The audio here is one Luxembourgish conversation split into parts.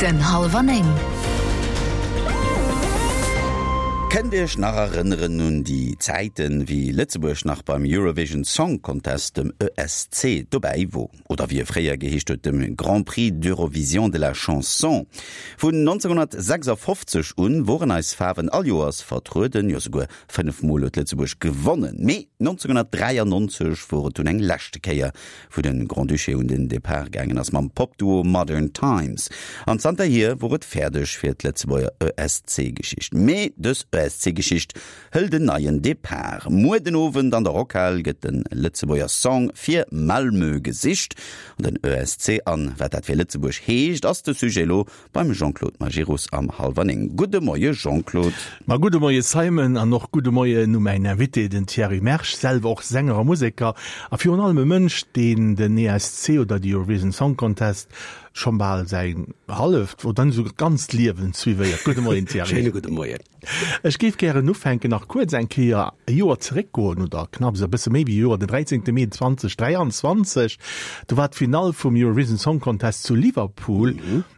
Minutten hallwer 9. Kënnt Iech nach erënneren un déi Zäiten, wéi Lëtzebuerg nach beim Eurovision Song Contest, dem ESC, dobäi wor? Oder wéi e fréier geheescht huet, dem Grand Prix d'Eurovision de la Chanson? Vun 1956 un woren eis Faarwen all Joers vertrueden, jo souguer 5 Mol huet Lëtzebuerg gewonnen. Mee 1993 wor et dunn eng leschte Kéier, wou de Grand-Duché un den Depart gaangen ass mam Pop-Duo Modern Times. An zanterhier wor et fäerdeg fir d'Lëtzebuerger ESC-Geschicht. Mee dës ESC-Geschicht hëlt en neien Depart. Muer den Owend an der Rockhal gëtt de Lëtzebuerger Song fir Malmö gesicht. An den ESC an wat dat fir Lëtzebuerg heescht, ass de Sujet elo Beim Jean-Claude Majerus am hallwer 9. Gudde Moie Jean-Claude. Ma gudde Moie Simon an och gudde Moien u mäin Invité, den Thierry Mersch, selwer och Sänger a Museker a virun allem e Mënsch, deen den ESC oder de Eurovision Song Contest schonn bal säin halleft oder net esouguer ganzt Liewen suivéiert. Gudde Moien Thierry. Schéine gudde Moien. Ech géif gären ufänken, nach kuerz eng Kéier e Joer zeréckgoen, oder knapps e bësse méi wéi e Joer, den 13. Mee 2023, do war d'Finall vum Eurovision Song Contest zu Liverpool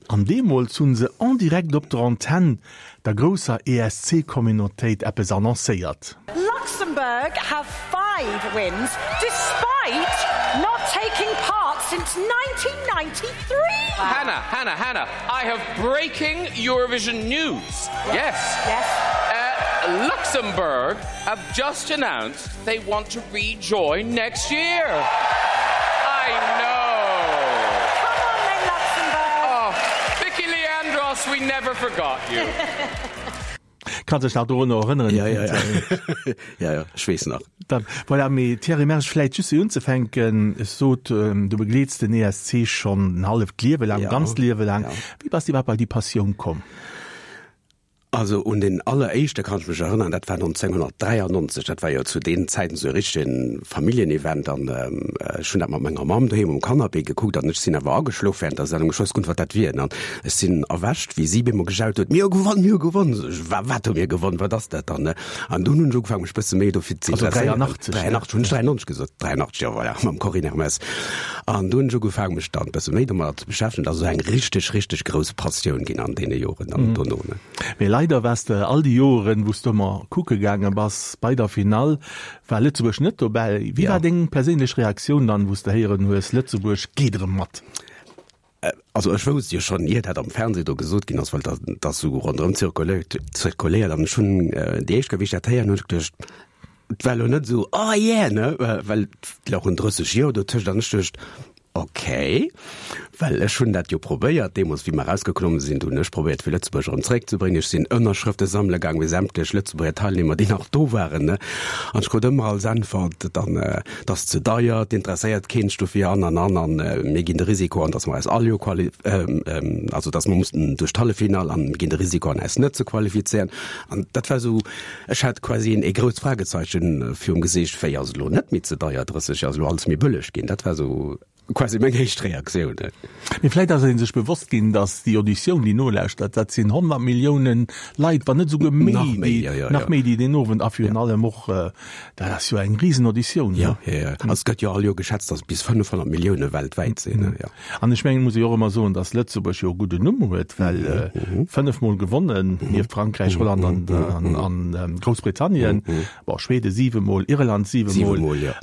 an deemools hu se en direct op der Antenn der grousser ESC-Communautéit eppes annoncéiert. Luxembourg have 5 wins despite not taking part since 1993! Hannah, Hannah, Hannah, I have breaking Eurovision news. Yes. Yes. Uh, Luxembourg have just announced they want to rejoin next year. I know. Come on then, Luxembourg. Oh, Vicky Leandros, we never forgot you. Kanns dech nach dorunner erënneren? Ja, ja, ja. ja, ja, ech weess nach. Dann, voilà, mee Thierry Mersch, vläit just fir unzefänken, ech sot, du begleets den ESC schonn en halleft Liewe laang, Ja, ganzt Liewe laang. ja. Wéi bass de iwwerhaapt bei déi Passioun komm? Also un den alleréischte kann ech mech erënnern, dat war 1993, dat war jo zu deenen Zäiten esou e richtegen Familljenevent an ech hunn dat mat menger Mamm doheem um Canapé gekuckt an ech sinn awer ageschlof während der Sendung, ech wousst guer net wat dat wier an ech sinn erwächt wéi si bemol gejaut huet, mir hu gewonn, mir hu gewonn, sot ech, wa wat hu mir gewonn, wat ass dat dann ne? An dunn hunn ech ugefaangen mech bësse méi dofir ze Also interesséieren. 83, ne? 83, hunn ech 93 gesot? 83, jo voilà, mam Corinne Hermès. An dunn hunn ech ugefaangen mech dann bësse méi domadder ze beschäftegen, dat ass esou eng richteg, richteg grouss Passioun ginn an deene Joren dann dono ne. Mee leider waars de all déi Joren, wou s de ëmmer kucke gaange bass, bei der Finall war Lëtzebuerg net dobäi. Wéi Ja. war deng perséinlech Reaktioun dann, wou s de héieren hues, Lëtzebuerg geet erëm mat? Also ech wousst jo schonn, ier dat am Fernseh do gesot ginn ass, well dat ass esou ronderëm zirkuléiert, zirkuléiert an ech hunn déi éischt Kéier, wéi ech dat héieren hunn, ech geduecht, et war elo net esou, oh yeah, ne, well et louchen 30 Joer dotëscht an ech duecht, okay, well ech hunn dat jo probéiert deemools, wéi mer erausgeklomme sinn, do hunn ech probéiert fir Lëtzebuerg erëm zeréckzebréngen. Ech sinn Ënnerschrëfte sammele gaang bei sämtlech Lëtzebuerger Teilnehmer, déi nach do waren, ne, an ech krut ëmmer als Äntwert dann, 't ass ze deier, 't interesséiert keen sech dofir an an an an mir ginn de Risiko an, datt mer eis all Joer quali also datt mer mussen duerch d'Halleffinall an mir ginn de Risiko an eis net ze qualifizéieren. An dat war esou, ech hat quasi een ee grousst Fragezeichen virum Gesiicht, wéi ass et elo net méi ze deier, 30 Joer ass elo alles méi bëlleg ginn. Dat war esou quasi meng éischt Reaktioun. Mee vläit ass ee sech bewosst ginn, datt déi Auditioun, déi nolauschtert, dat sinn 100 Milliounen Leit, wann net esouguer méi, Nach méi, déi, jo, jo, nach jo. méi, déi deen Owend a virun allem och, dat ass jo eng Risenauditioun, Jo, ne? jo, jo. Also et gëtt jo all Joer geschätzt, datt et bis 500 Millioune weltwäit sinn, ne? Jo. An ech mengen, muss ee jo och ëmmer soen, datt Lëtzebuerg jo e gudden Numm huet, well fënnefmol gewonnen, nieft Frankräich, Holland an, an, an Groussbritannien, bon, Schwede siwemol, Irland siwemol. Siwemol, jo.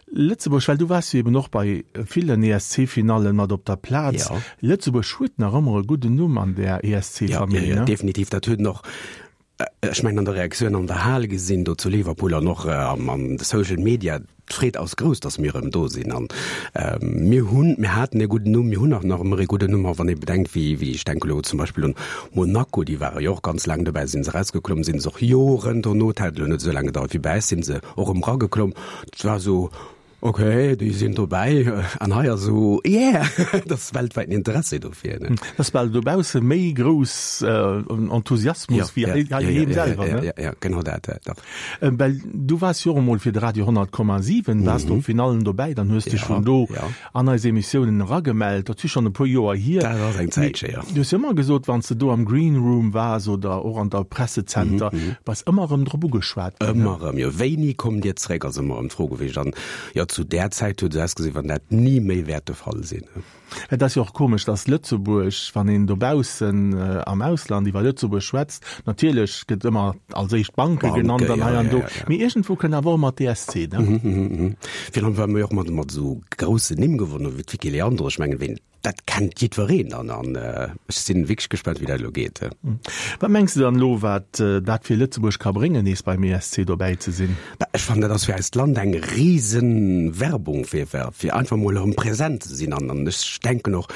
Lëtzebuerg, well du waars jo eben och bei villen ESC-Finallen mat op der Plaz. Ja. Lëtzebuerg huet nach ëmmer e gudden Numm an där Ja, ESC-Famill, ja, ja, ne? definitiv. Dat huet en och, ech mengen, an der Reaktioun an der Hal gesinn, do zu Liverpool an och am, an de Social Media. D'Freed ass grouss, datt mir erëm do sinn. An mir hunn, mir haten e gudden Numm, mir hunn och nach ëmmer e gudden Numm. A wann ee bedenkt, wéi, wéi, ech denke elo zum Beispill un Monaco, déi ware jo och ganz laang dobäi, sinn se erausgeklomm, sinn se och Joren dono, et hat elo net esou laang gedauert wéi bei eis, sinn se och erëm erageklomm. Et war esou, ok, déi sinn dobäi an hei ass esou, yeah, et ass weltwäiten Interessi dofir. Ne? Et ass bal dobausse méi grouss Enthusiasmus wéi hei heiheem selwer, ne? Ja, ja, genau dat, ja, dach. Well du waars jo och emol fir de Radio 100,7 waars du op Finallen dobäi, dann hues dech vun do an eis Emissiounen eragemellt. Dat si schonn e puer Joer hier. Dat ass eng Zäitche, jo. Du hues jo ëmmer gesot, wann s de do am Green Room waars oder och an der Pressezenter, bass ëmmer erëm drop ugeschwat ginn. Ëmmer erëm, jo. Wéini kommt Dir zréck, ass ëmmer erëm d'Fro gewiescht. An jo, Leider zu där Zäit huet et ausgesinn, wann dat ni méi wäert de Fall sinn. Et ass jo och komesch, dass Lëtzebuerg, wann een dobaussen am Ausland iwwer Lëtzebuerg schwätzt, natierlech gëtt ëmmer als éischt d'Banke genannt an hei an do, mee iergendwou kënnt awer och ëmmer d'ESC, ne? Virun allem, well mer jo och mat mat esou groussen Nimm gewonnen hunn, wéi d'Vicky Leandro. Ech mengen, ween Dat kennt jiddwereen dann an ech sinn wierklech gespaant wéi dat elo geet. Wat mengs de dann elo wat dat fir Lëtzebuerg ka bréngen nees beim ESC dobäi ze sinn? Bah ech fannen dat ass fir eist Land eng riesen Werbung fir fir einfach mol erëm präsent ze sinn an an ech denken och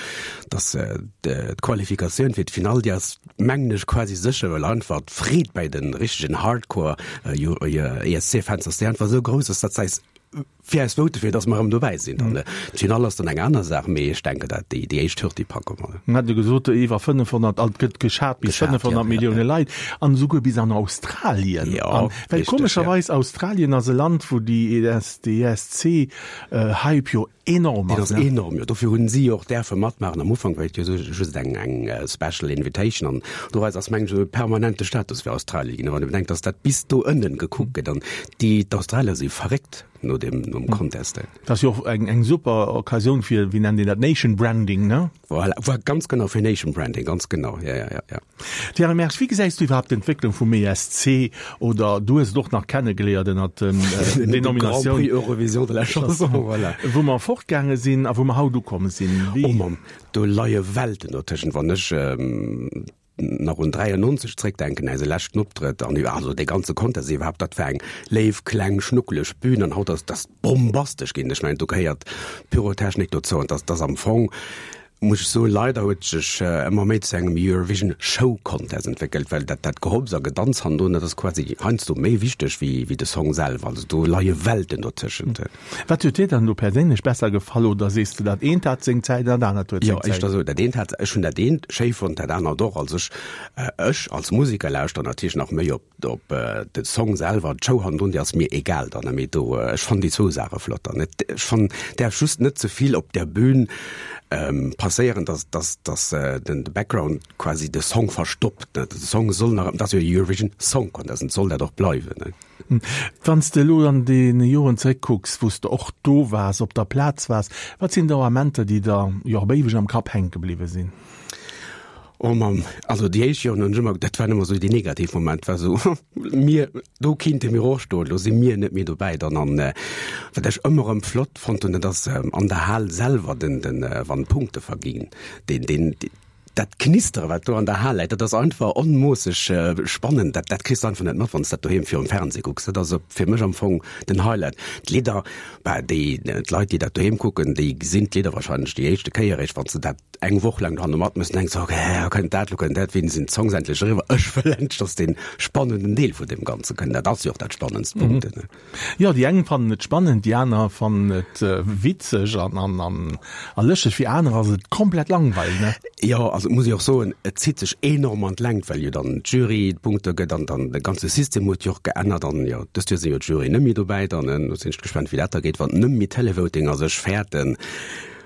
dass d'Qualifikatioun fir d'Finall déi ass mengen ech quasi sécher well einfach d'Freed bäi den richtegen Hardcore ESC Fans ass déi einfach esou grouss ass dat eis Fir eis vote fir, dass mer erëm dobäi sinn. Dann d'Finall ass dann eng aner Saach, mee ech denken, dat déi déi éischt Hürd, déi packe mer. Mir hate gesot, iwwer 500, alt gëtt geschat bis 500 Millioune Leit an esouguer bis an Australien. Jo, well komescherweis Australien ass e Land, wou déi ESC-Hype jo enorm ass. Deen ass enorm, jo. Dofir hunn si jo och däerfe matmaachen. Am Ufank war et jo just eng eng Special Invitation an doraus ass mengen ech esou e permanente Status fir Australie ginn. A wann ee bedenkt, dass dat bis do ënnen gekuckt gëtt an déi d'Australier si verréckt no deem nom Contest. Dat ass jo och eng eng super Occasioun fir, wéi nennt een dat, Nation Branding, ne? Voilà, ganz genau, fir Nation Branding, ganz genau, ja, ja, ja, ja. Thierry Mersch, wéi gesäis du iwwerhaapt d'Entwécklung vum ESC oder du hues et och nach kennegeléiert ënnert den Denominatioun Grand Prix Eurovision de la Chanson, voilà. Wou mer fortgaange sinn a wou mer haut ukomm sinn. Wéi. Oh Mamm, do leie Welten dotëschent. Wann ech nach un 93 zréckdenken, eise leschten Optrëtt an also dee ganze Contest iwwerhaapt, dat war eng léif, kleng, schnuckeleg Bühn an haut ass dat bombastesch ginn. Ech mengen, do gehéiert Pyrotechnik dozou an dat ass am Fong, muss ech soen, leider huet sech ëmmer méi zu engem Eurovision Show Contest entwéckelt, well dat dat Gehopps a Gedanz hannendrun, dat ass quasi heiansdo méi wichteg wéi wéi de Song selwer. Also do leie Welten dotëschent. Wat huet dir dann elo perséinlech besser gefall oder sees de dat eent hat seng Zäit an dat anert huet seng Zäit? Jo, éischter esou, dat eent hat, ech hunn dat eent schéi fonnt, dat anert och. Also ech ech als Museker lauschteren natierlech nach méi op op de Song selwer, d'Show hannendrun, déi ass mir egal dann, mee do, ech fannen déi zwou Saache flott dann. Et, ech fannen, däerf just net ze vill op der Bühn passéieren, dass, dass, dass den de Background quasi de Song verstoppt, ne. De Song soll nach, et ass jo e Eurovision Song Contest, an et soll dat och bleiwen, ne. Wann s de elo an deene Joren zeréckkucks, wou s de och do waars, op der Plaz waars, wat sinn do Amenter, déi der jo op éiweg am Kapp hänke bliwwe sinn? Oh Mamm, also déi éischt Joren hunn ech ëmmer, dat waren ëmmer esou déi negativ Moment, war esou, mir, do kinnte mir och stoen, elo si mir net méi dobäi dann. An wat ech ëmmer erëm flott fonnt hunn, dat ass an der Hal selwer den, den, wann d'Punkte verginn, deen, deen, dat Knistere wat do an der Hal läit, dat ass einfach onmoosseg spannend, dat, dat kriss de einfach net mat, wann s dat doheem virum Fernseh kucks. Dat ass fir mech am Fong den Highlight. D'Lidder, bah, déi, d'Leit déi dat doheem kucken, déi gesinn d'Lidder wahrscheinlech déi éischte Kéier eréischt, wann se dat eng Woch laang dohanne matmëssen, denks de, ok, kënnt dat, lo kënnt dat, wéini sinn d'Songs endlech eriwwer? Ech wëll endlech, dass dee spannenden Deel vun deem Ganze kënnt. Dat ass jo och dat spannendst Punkt. Mhm. Jo, déi eng fannen et spannend, déi aner fannen et witzeg an, an, an, a lëschteg, fir aner ass et komplett langweileg, ne? Jo, also muss ech och soen, et zitt sech enorm an d'Längt, well jo dann d'Jury d'Punkte gëtt an dann de ganze System huet jo och geännert an jo, dëst Joer sinn jo d'Jury net méi dobäi dann, do sinn ech gespannt, wéi dat da geet, wann net méi Televoting ass. Ech fäerten,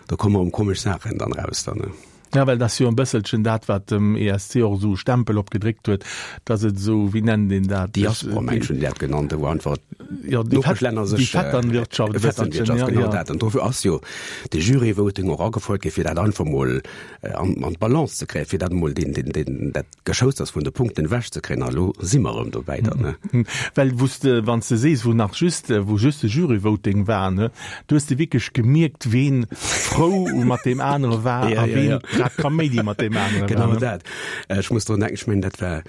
Do komme erëm komesch Saachen dann raus dann, ne? Ja, well dat ass jo e bësselchen dat, wat dem ESC och esou e Stempel opgedréckt huet, dass et esou, wéi nennt een dat? Diaspora, mengen ech, hunn déi dat genannt, wou einfach Jo, déi Fett, d'Nopeschlänner déi sech, Vetternwirtschaft e bësselchen, Vetternwirtschaft, ja, genau ja. dat. An dofir ass jo de Jury-Voting och agefouert gi fir dat einfach mol an, an d'Balance ze kréien, fir dat emol deen, deen, deen, dat Geschousters vun de Punkten ewech ze kréien. A lo si mer erëm dobäi dann, ne? Well wou s de, wann s de sees, wou nach just, wou just de Jury-Voting war, ne, do hues de wierklech gemierkt, ween frou mat deem anere war Ja, a ja, ween ja. grad Kaméidi mat deem anere war, Genau ne? dat. Ech muss drun denken, ech mengen, dat war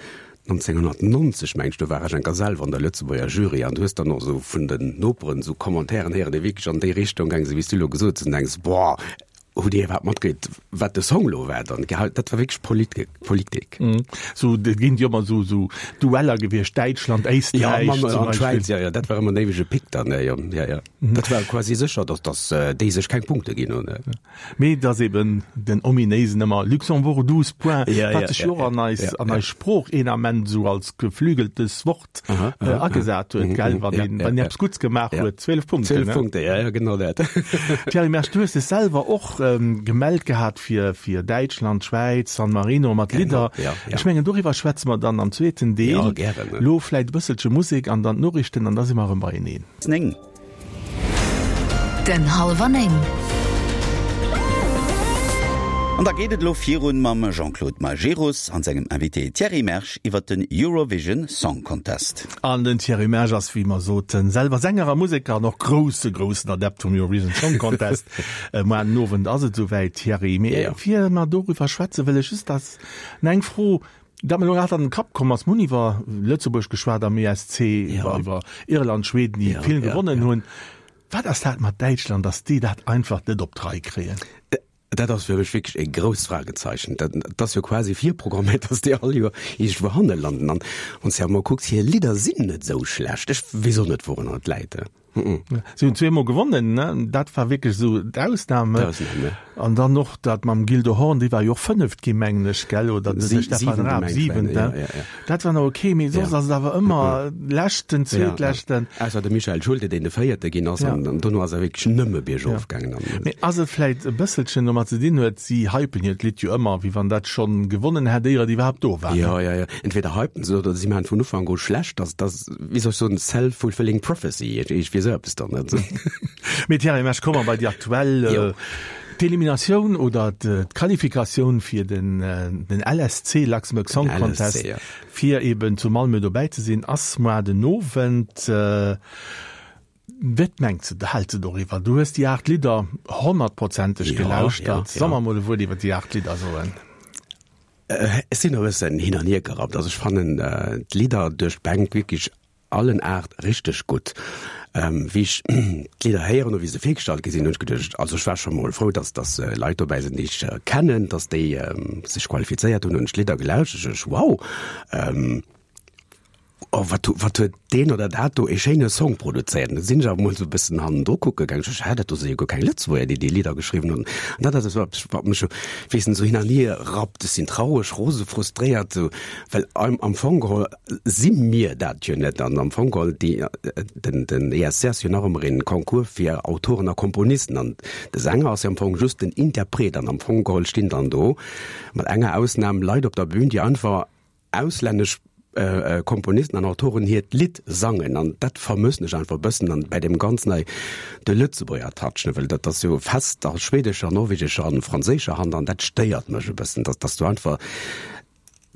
1990, meng ech, do war ech enker selwer an der Lëtzebuerger Jury an du hues dann och esou vun den Noperen esou Commentairen héieren, déi wierklech an déi Richtung gaange sinn, wéi s du elo gesot hues, an du denks, Boah, Hutt Dir iwwerhaapt matkritt, wat de Song lo war dann? Dat war wierklech Politik. Sou, et ginn jo ëmmer sou, sou Dueller gewiescht, Däitschland, Éisträich ja, zum Beispill. Schwäiz, ja, ja, dat war ëmmer en éiwege Pick dann, jo, ja, ja. Dat war quasi sécher, datt, datt déi sech keng Punkte ginn hunn. Mee et ass eben den ominéisen ëmmer Luxembourg 12 points, wat sech jo och an eis, an eis Sprooch een Ament esou als geflügeltes Wort Aha, aha, äh, agesat huet, gell? Wann een, wann eppes Gutts gemaach huet, 12 Punkte. 12 Punkte, ja, ja, genau dat. Thierry Mersch, du hues dech selwer och ähm, gemellt gehat fir, fir Däitschland, Schwäiz, San Marino mat Lidder. ja, ja. Ech mengen, doriwwer schwätze mer dann am zweeten Deel. Ja, gären, ne? Lo vläit e bësselche Musek an dann d'Noriichten an da si mer erëm beieneen. 9. Minutten hallwer 9. An da geet et elo virun mam Jean-Claude Majerus an sengem Invité Thierry Mersch iwwert den Eurovision Song Contest. An den Thierry Mersch ass, wéi mer soten, selwer Sänger a Museker an och grousse, groussen Adept vum Eurovision Song Contest. Muar den Owend ass et esouwäit, Thierry. Mee ier mer doriwwer schwätzen, wëll ech just dass nach eng Fro, Dat mer elo grad an den Kapp komm ass, mir hunn iwwer Lëtzebuerg geschwat am ESC, iwwer iwwer Irland, Schweden, déi vill gewonnen hunn. Wat ass dat mat Däitschland, datt déi dat einfach net op d'Rei kréien? Dat ass fir mech wierklech e grousst Fragezeichen. Dat ass jo quasi virprogramméiert, datt déi all Joer iergendwou hanne landen. An wann s de awer mol kucks, hir Lidder sinn net esou schlecht. Ech weess och net, wourunner et läit. Si hunn zweemol gewonnen, ne? Dat war wierklech esou d'Ausname. D'Ausnam, ja. An dann och dat mam Gildo Horn, dee war jo och Fënneft ginn, mengen ech, gell? Oder de Sie, Stefan siwente, Raab, meng ech, Siwenten. ja, ja, ja. Dat war nach okay, mee soss Ja. ass et awer ëmmer Leschten, Ja, ja. Zweetleschten. Ausser de Michael Schulte, deen de Véierte ginn ass, Ja. an, an dono ass e wierklech nëmme biergof Ja. gaangen. An, Mee ass et vläit e bësselchen domat ze dinn huet, si hypen hiert Lidd jo ëmmer, wéi wann dat schonn gewonnen hätt, éier et iwwerhaapt do war, ne? Ja, ja, ja. Entweder hypen se oder si maachen vun Ufank u schlecht, dass, dass wéi soll ech soen, self-fulfilling prophecy, iergendwéi esou eppes dann, net? Mee Thierry Mersch, komme mer bei déi aktuell, d'Eliminatioun oder d'Qualifikatioun fir den den LSC, Luxembourg Song Contest, fir eben zu Malmö dobäi ze sinn, ass moar den Owend. Wat mengs de, häls de doriwwer? Du hues déi 8 Lidder honnertprozenteg gelauschtert. Soll mer mol e Wuert iwwer déi 8 Lidder soen? Ech sinn e bëssen hin an hier gerappt. Also ech fannen d'Lidder duerch d'Bänk wierklech allen 8 richteg gutt. Wéi ech d'Lidder héieren hu wéi se virgestallt gi sinn, hunn ech geduecht, also ech war scho mol frou, dass dass Leit dobäi sinn, déi ech kennen, dass déi sech qualifizéiert hunn, hunn ech d'Lidder gelauschtert, ech wow, Oh, wat, wat huet deen oder dat do ee schéine Song produzéiert. An da sinn ech awer mol esou e bëssen hannendru kucke gaangen. Ech sot, hä, dat do si jo guer keng Lëtzebuerger, déi déi Lidder geschriwwen hunn. An dat ass esou eppes, wat mech esou, weess net, esou hin an hier rappt. Ech sinn traureg, rose, frustréiert, esou, well am, am Fong geholl si mir dat jo net. An am Fong geholl, déi, den, den ESC ass jo nach ëmmer een Concours fir Autoren a Komponisten. An de Sänger ass jo am Fong just den Interpret. An am Fong geholl stinn dann do, mat enger Ausnam, Leit op der Bühn, déi einfach auslännesch Komponisten an Autoren hiert Lidd sangen an dat vermëssen ech einfach e bëssen an bäi deem ganzen hei de Lëtzebuerger Touch, ne, well dat ass jo fest a schwedescher, norwegescher an franséischer Hand an dat stéiert mech e bëssen, dass dass do einfach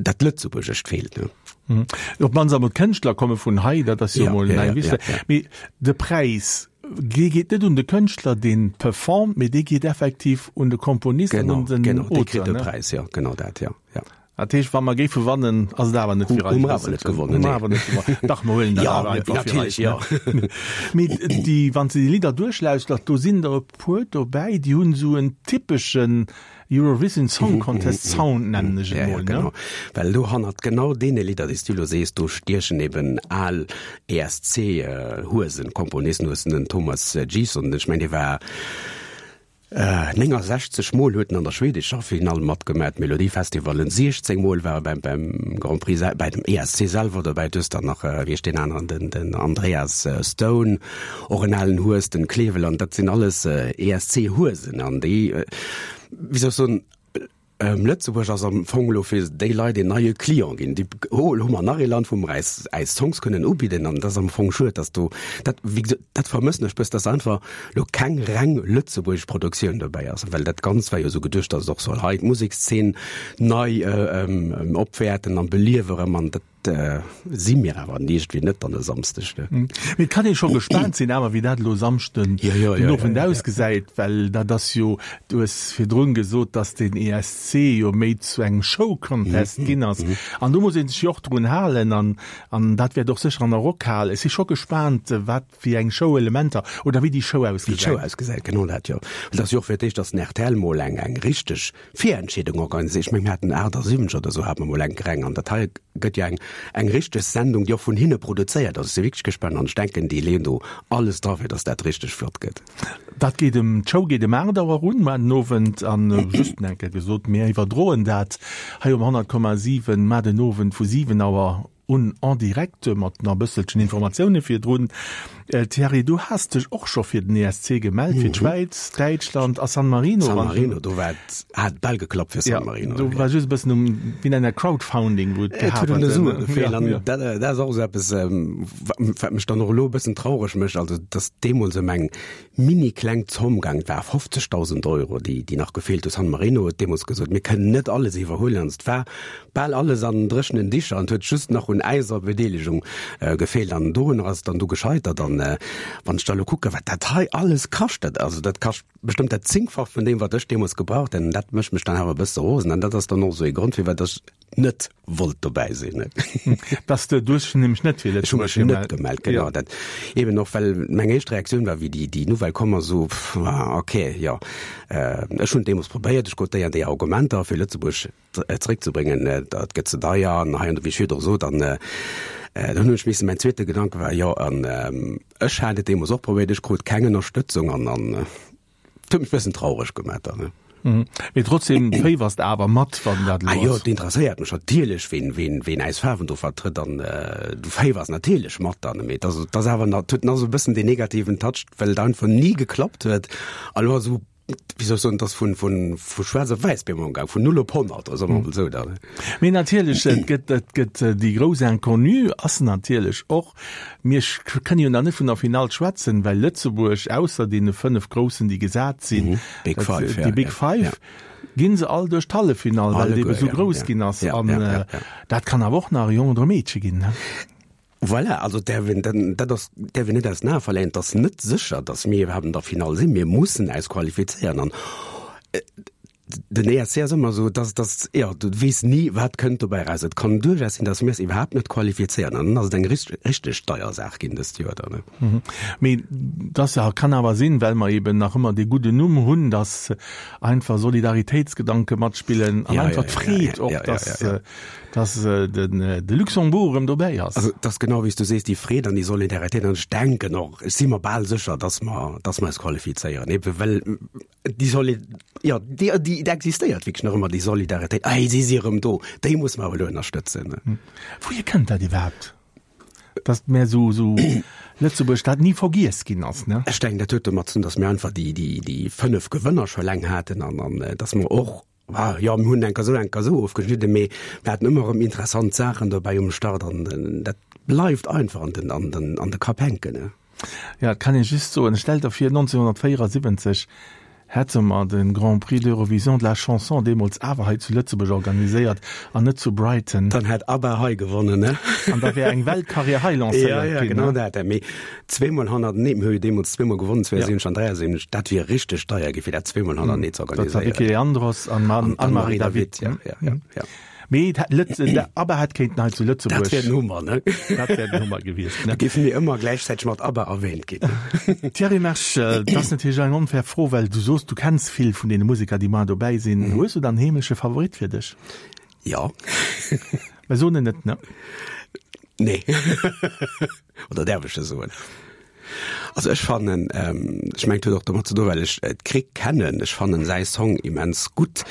dat Lëtzebuergescht feelt, ne. Op d'mannst emol d'Kënschtler komme vun hei, dat ass jo Ja, emol ja, eng ja, wichteg. ja, ja. Mee de Präis, dee geet net un de Kënschtler, deen performt, mee dee geet effektiv un de Komponist an Genau, un den genau, dee kritt Auteur, de ne? Präis, jo, genau dat, jo, jo. Dat heescht, wa mer géife wannen, ass et awer net fir eis. Hu mer awer net gewonnen, nee. Hu mer awer net gewonnen. Dach, mer huelen dat ja, awer einfach fir eis. Natierlech, ja. Mee déi, wann s de déi Lidder duerchlauschters, do sinn der e puer dobäi, déi hunn esou en typeschen Eurovision Song Contest Sound, nennen ech et Ja, ja, mol, ne? genau. Well do hannert genau deene Lidder, déi s du elo sees, do stiechen eben al ESC-Huesen, Komponisten, hues den Thomas G:son, ech mengen, dee war 69 Mol huet en an der schwedescher Finall matgemat, Melodifestivalen 16 Mol war e beim beim Grand Prix bei dem ESC selwer dobäi. Du hues dann nach, wéi heescht deen aneren, den den Andreas Stone, och en alen Hues, den Kleveland, dat sinn alles ESC-Huesen an déi, wéi soll ech soen, Lëtzebuerg ass am Fong elo fir déi Leit een neie Client ginn. Déi, oh, elo hu mer nach ee Land, wou mer äis, äis Songs kënnen ubidden. An dat ass am Fong schued, dass do, dat, wéi gesot, dat vermëssen ech bëssen, dass einfach elo keng reng lëtzebuergesch Produktioun dobäi ass. Well dat Ganzt war jo esou geduecht, dass et och soll hei d'Musekszeen nei opwäerten an beliewe erëm. An dat si mir awer iergendwéi net dann e Samsdeg, ne? Mee et kann ee scho gespaant sinn awer, wéi dat elo Samschden den Owend ausgesäit, well dat ass jo, du hues virdrun gesot, datt den ESC jo méi zu engem Show-Contest ginn ass an do muss ee sech jo och drun halen an an dat wäert och sécher an der Rockhal. Ech si scho gespaant, wat fir eng Show-Elementer oder wéi déi Show Wéi d'Show ausgesäit. ausgesäit, genau dat, jo. Well et ass jo och fir d'éischt, datt den rtl mol eng eng richteg Virentscheedung organiséiert. Ech mengen, mir haten 78 oder esou hate mer mol eng reng an dat hei gëtt jo eng eng richteg Sendung, déi och vun hinne produzéiert ass. Ech si wierklech gespaant an ech denken, déi leeën do alles dra fir datt dat richteg flott gëtt. Dat geet em, d'Show geet em 8 Auer un mar den Owend an just eng Kéier gesot, mir iwwerdroen dat hei um 100,7 mar den Owend vu 7 Auer. un en direct mat nach e bësselchen Informatioune virdrun. Thierry, du has dech och scho fir den ESC gemellt, fir d'Schwäiz, Däitschland a San Marino. San Marino, do war et, hat bal geklappt fir San Marino. Do war just e bëssen um, wéi nennt dat, Crowdfounding, wou et gehat huet. Et huet un de Sue gefeelt an dat, dat ass och esou eppes, wat mech dann och elo e bëssen traureg mécht, also datt deemools ëm eng mini kleng Zomm gaang, et war 50.000 Euro, déi, déi nach gefeelt hu. San Marino huet deemools gesot, mir kënnen net alles iwwerhuelen an et war bal alles an dréchenen Dicher an et huet just nach un äiser Bedeelegung gefeelt an dorunner ass et dann du gescheitert. An wann ech da elo kucken, wat dat hei alles kascht, dat, also dat kascht bestëmmt dat Zéngfach vun deem, wat ech deemools gebraucht hätt an dat mécht mech dann awer e bësse rosen an dat ass dann och esou ee Grond, firwat ech net wollt dobäi sinn. Dass de, du hues dech nämlech net fir Lëtzebuerg gemellt. Ech hu mech net gemellt, genau. Ja. Dat eben och, well meng éischt Reaktioun war, wéi déi, déi Nouvelle komm ass, esou, pff, ok, jo. Ech hunn et deemools probéiert, ech krut déi an déi Argumenter, fir Lëtzebuerg zeréckzebréngen, dat gëtt ze deier an hei an do, wéi ech virdru sot. An dann hunn ech missen, mäin zweete Gedanke war, jo, an ech hat et deemools och probéiert, ech krut keng Ënnerstëtzung an, an Et huet mech bëssen traureg gemat dann, ne? Mee trotzdem féiwers de awer mat, wann dat elo ass. Ah jo, et interesséiert mech natierlech, ween, ween, ween äis Faarwen do vertrëtt an du féiwers natierlech mat dann, mee et ass, et ass awer nach, et huet nach esou e bëssen deen negativen Touch, well et einfach ni geklappt huet a lo esou, wéi soll ech soen, et ass vun, vun, vu schwaarz op wäiss bemol gaang, vun null op 100, soe mer emol esou dann. Mee natierlech, et gëtt, et gëtt déi grouss Inconnue ass natierlech och, Mir kënne jo nach net vun der Finall schwätzen, well Lëtzebuerg, ausser deene 5 Groussen, déi gesat sinn, Big Five, déi Big Five, gi se all duerch d'Halleffinall, well et ebe sou grouss ginn ass. An dat kann awer och nach e Jong oder e Meedche ginn. Voilà, also däerf een, dat ass, däerf een net aus den Ae verléieren. Et ass net sécher, datt mir iwwerhaapt an der Finall sinn. Mir mussen äis qualifizéieren an Den ESC ass ëmmer esou, dass, dass, jo, du weess ni, wat kënnt dobäi eraus. Et kann duerchaus sinn, dass mir es iwwerhaapt net qualifizéieren an dann ass et eng richteg, richteg deier Saach ginn dëst Joer dann. Mee dass kann awer sinn, well mer eben nach ëmmer dee gudden Numm hunn, dass einfach Solidaritéitsgedanke matspillen an einfach d'Freed och, dass, dass den, de Luxembourg erëm dobäi ass. Also, et ass genau wéi s du sees, déi Freed an déi Solidaritéit an ech denken och, ech si mer bal sécher, dass mer, dass mer eis qualifizéieren, ebe well Déi Soli jo, déi, déi existéiert wierklech nach ëmmer, déi Solidaritéit. Ei, si si erëm do, déi muss mer awer elo ënnerstëtzen. Wouhier kënnt dat iwwerhaapt, datt mär esou, esou Lëtzebuerg dat ni vergiess ginn ass, ne? Ech denken, dat huet domat ze dinn, datt mir einfach déi, déi, déi 5 Gewënner scho laang haten an, an datt mer och, ah jo, mir hunn enker esou, enker esou ofgeschnidden, mee mir haten ëmmer erëm interessant Saachen dobäi um Start an dat bleift einfach an den, an den, an de Kapp hänken, ne? Ja, et kann ee just soen, stell der vir, 1974 hätte mer de Grand Prix d'Eurovision de la Chanson deemools awer hei zu Lëtzebuerg organiséiert an net zu Brighton. Dann hätt ABBA hei gewonnen, ne? An da wär eng Weltkarriär hei lancéiert ginn. Ja, ja, genau dat. Mee zweemol hannertenee, mir hu jo deemools zweemol gewonnen, 72 an 73, dat wier richteg deier gi fir dat zweemol hannertenee ze organiséieren. Dat war Vicky Leandros an Anne-Marie David. Ja, ja, ja, ja. Mee et hätt Lëtz, de ABBA hätt kéinten hei zu Lëtzebuerg. Dat wär den Hummer, ne? Dat wär den Hummer gewiescht, ne? Da géife mir ëmmer gläichzäiteg mat ABBA erwähnt ginn. Thierry Mersch, dat ass natierlech eng onfair Fro, well du soos, du kenns vill vun deene Museker, déi mar dobäi sinn. Hues du dann en heemleche Favorit fir dech? Jo. Mä soen en net, ne? Nee. Oder däerf ech e soen? Also ech fannen, ech mengen et huet och domat ze doen, well ech d'Krick kennen, ech fannen säi Song immens gutt,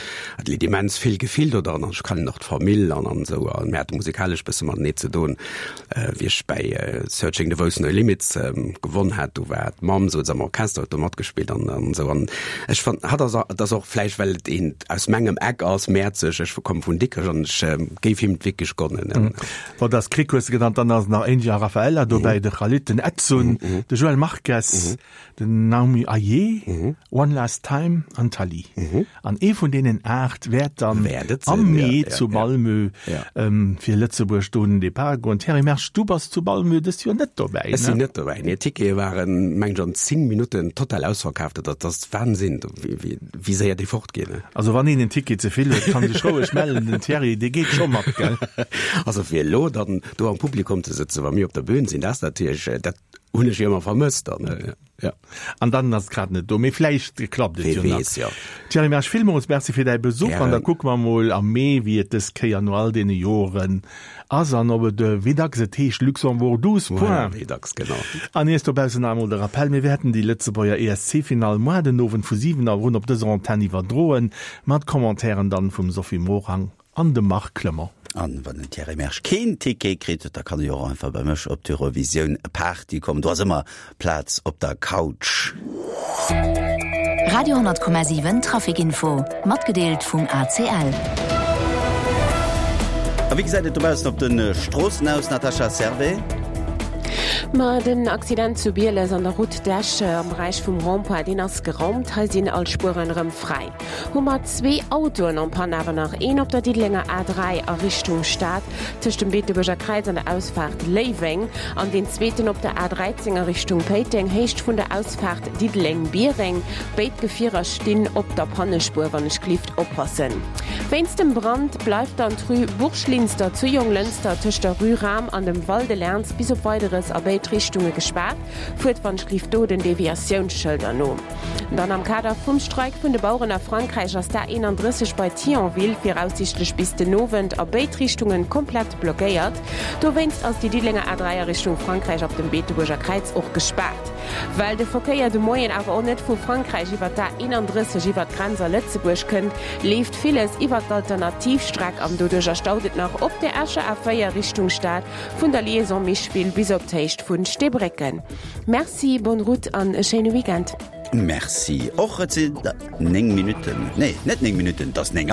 et leet immens vill Gefill do dran an ech kennen och d'Famill an an esou an mir hate musikalesch bësse matenee ze doen. Wéi ech bäi Searching the Voice No Limits gewonn hat, do war d'Mamm souze am Orchester, huet do matgespillt an an esou an ech fannen hatt ass, et ass och vläicht well et een aus mengem Eck ass, Mäerzeg, ech komme vun Dikrech an ech géif him et wierklech gonnen. Bon, dass Krick hues de genannt, dann ass nach Angie a Raffaella dobäi, de Khalid, den Edsun, de Joël Marques, den Naomi Ayé, One Last Time an d'Tali. An ee vun deenen 8 wäert dann am Mee zu Malmö fir Lëtzebuerg do un den Depart goen. Thierry Mersch, du bass zu Malmö dëst Joer net dobäi, ne? Ech sinn net dobäi, nee. D'Tickete waren, mengen ech, an 10 Minutten total ausverkaaft. Dat ass Wahnsinn, wéi. Wéi séier déi fort ginn. Also wann een en Ticket ze vill huet, kann sech roueg mellen, den Thierry dee geet scho mat, gell? Also fir elo dann do am Publikum ze sëtzen, wa mir op der Bühn sinn, dat ass natierlech, dat hunn ech jo ëmmer vermësst dann, jo. An dann ass et grad net do, mee vläicht klappt et jo nach. Wee weess, jo. Thierry Mersch, villmools Merci fir däi Besuch an da kucke mer mol am Mee, wéi et dës Kéier no all deene Joren Ass an ob et, wéi dacks et heescht, Luxembourg 12 points. Wéi dacks, genau. An iech dobaussen nach emol de Rappell, Mir wäerten déi Lëtzebuerger ESC-Finall moar den Owend vu 7 Auer un op dëser Antenn iwwerdroen, mat Commentairen dann vum Sophie Morang an dem Marc Clement. An wann den Thierry Mersch keen Ticket kritt, da kann e jo och einfach bei mech op d'Eurovisioun Party kommen. Do ass ëmmer Plaz op der Couch. Radio 10,7 Traficinfo, matgedeelt vum ACL. A wéi gesäit et dobaussen op de Stroossen aus, Natascha Servais? Ma den Accident zu Bieles an der Route d'Esch am Beräich vum Rond-point, deen ass geraumt. Hei sinn all Spueren erëm fräi. Hu mer zwee Autoen en panne, awer nach een op der Diddelenger A3 a Richtung Stad, tëscht dem Beetebuerger Kräiz an der Ausfaart Léiweng, an deen zweeten op der A13 a Richtung Péiteng, Héicht vun der Ausfaart Diddeleng-Biereng. Béid Gefierer stinn op der Pannespuer, wann ech glift oppassen. Wéinst dem Brand bleift dann d'Rue Bourg-Linster zu Jonglënster tëscht der Rue Rahm an dem Val de Lernz bis op Weideres a béid Richtunge gespaart. Fuert wann ech glift do den Deviatiounsschëlder no. Dann am Kader vum Streik vun de Baueren a Frankräich ass d'A31 bei Thionville viraussiichtlech bis den Owend a béid Richtungen komplett blockéiert. Dowéinst ass déi Diddelenger A3 a Richtung Frankräich ab dem Beetebuerger Kräiz och gespaart. Well de Verkéier de Moien awer och net vu Frankräich iwwer d'A31 iwwer d'Grenz a Lëtzebuerg kënnt, leeft villes iwwer d'Alternativstreck an doduercher staut et nach op der Escher A4 Richtung Stad vun der Liaison Micheville bis op d'Héicht vun Steebrécken. Merci, bonne route an e schéine Weekend. Merci och. Et sinn 9 Minutten, nee, net 9 Minutten, et ass 9 Auer.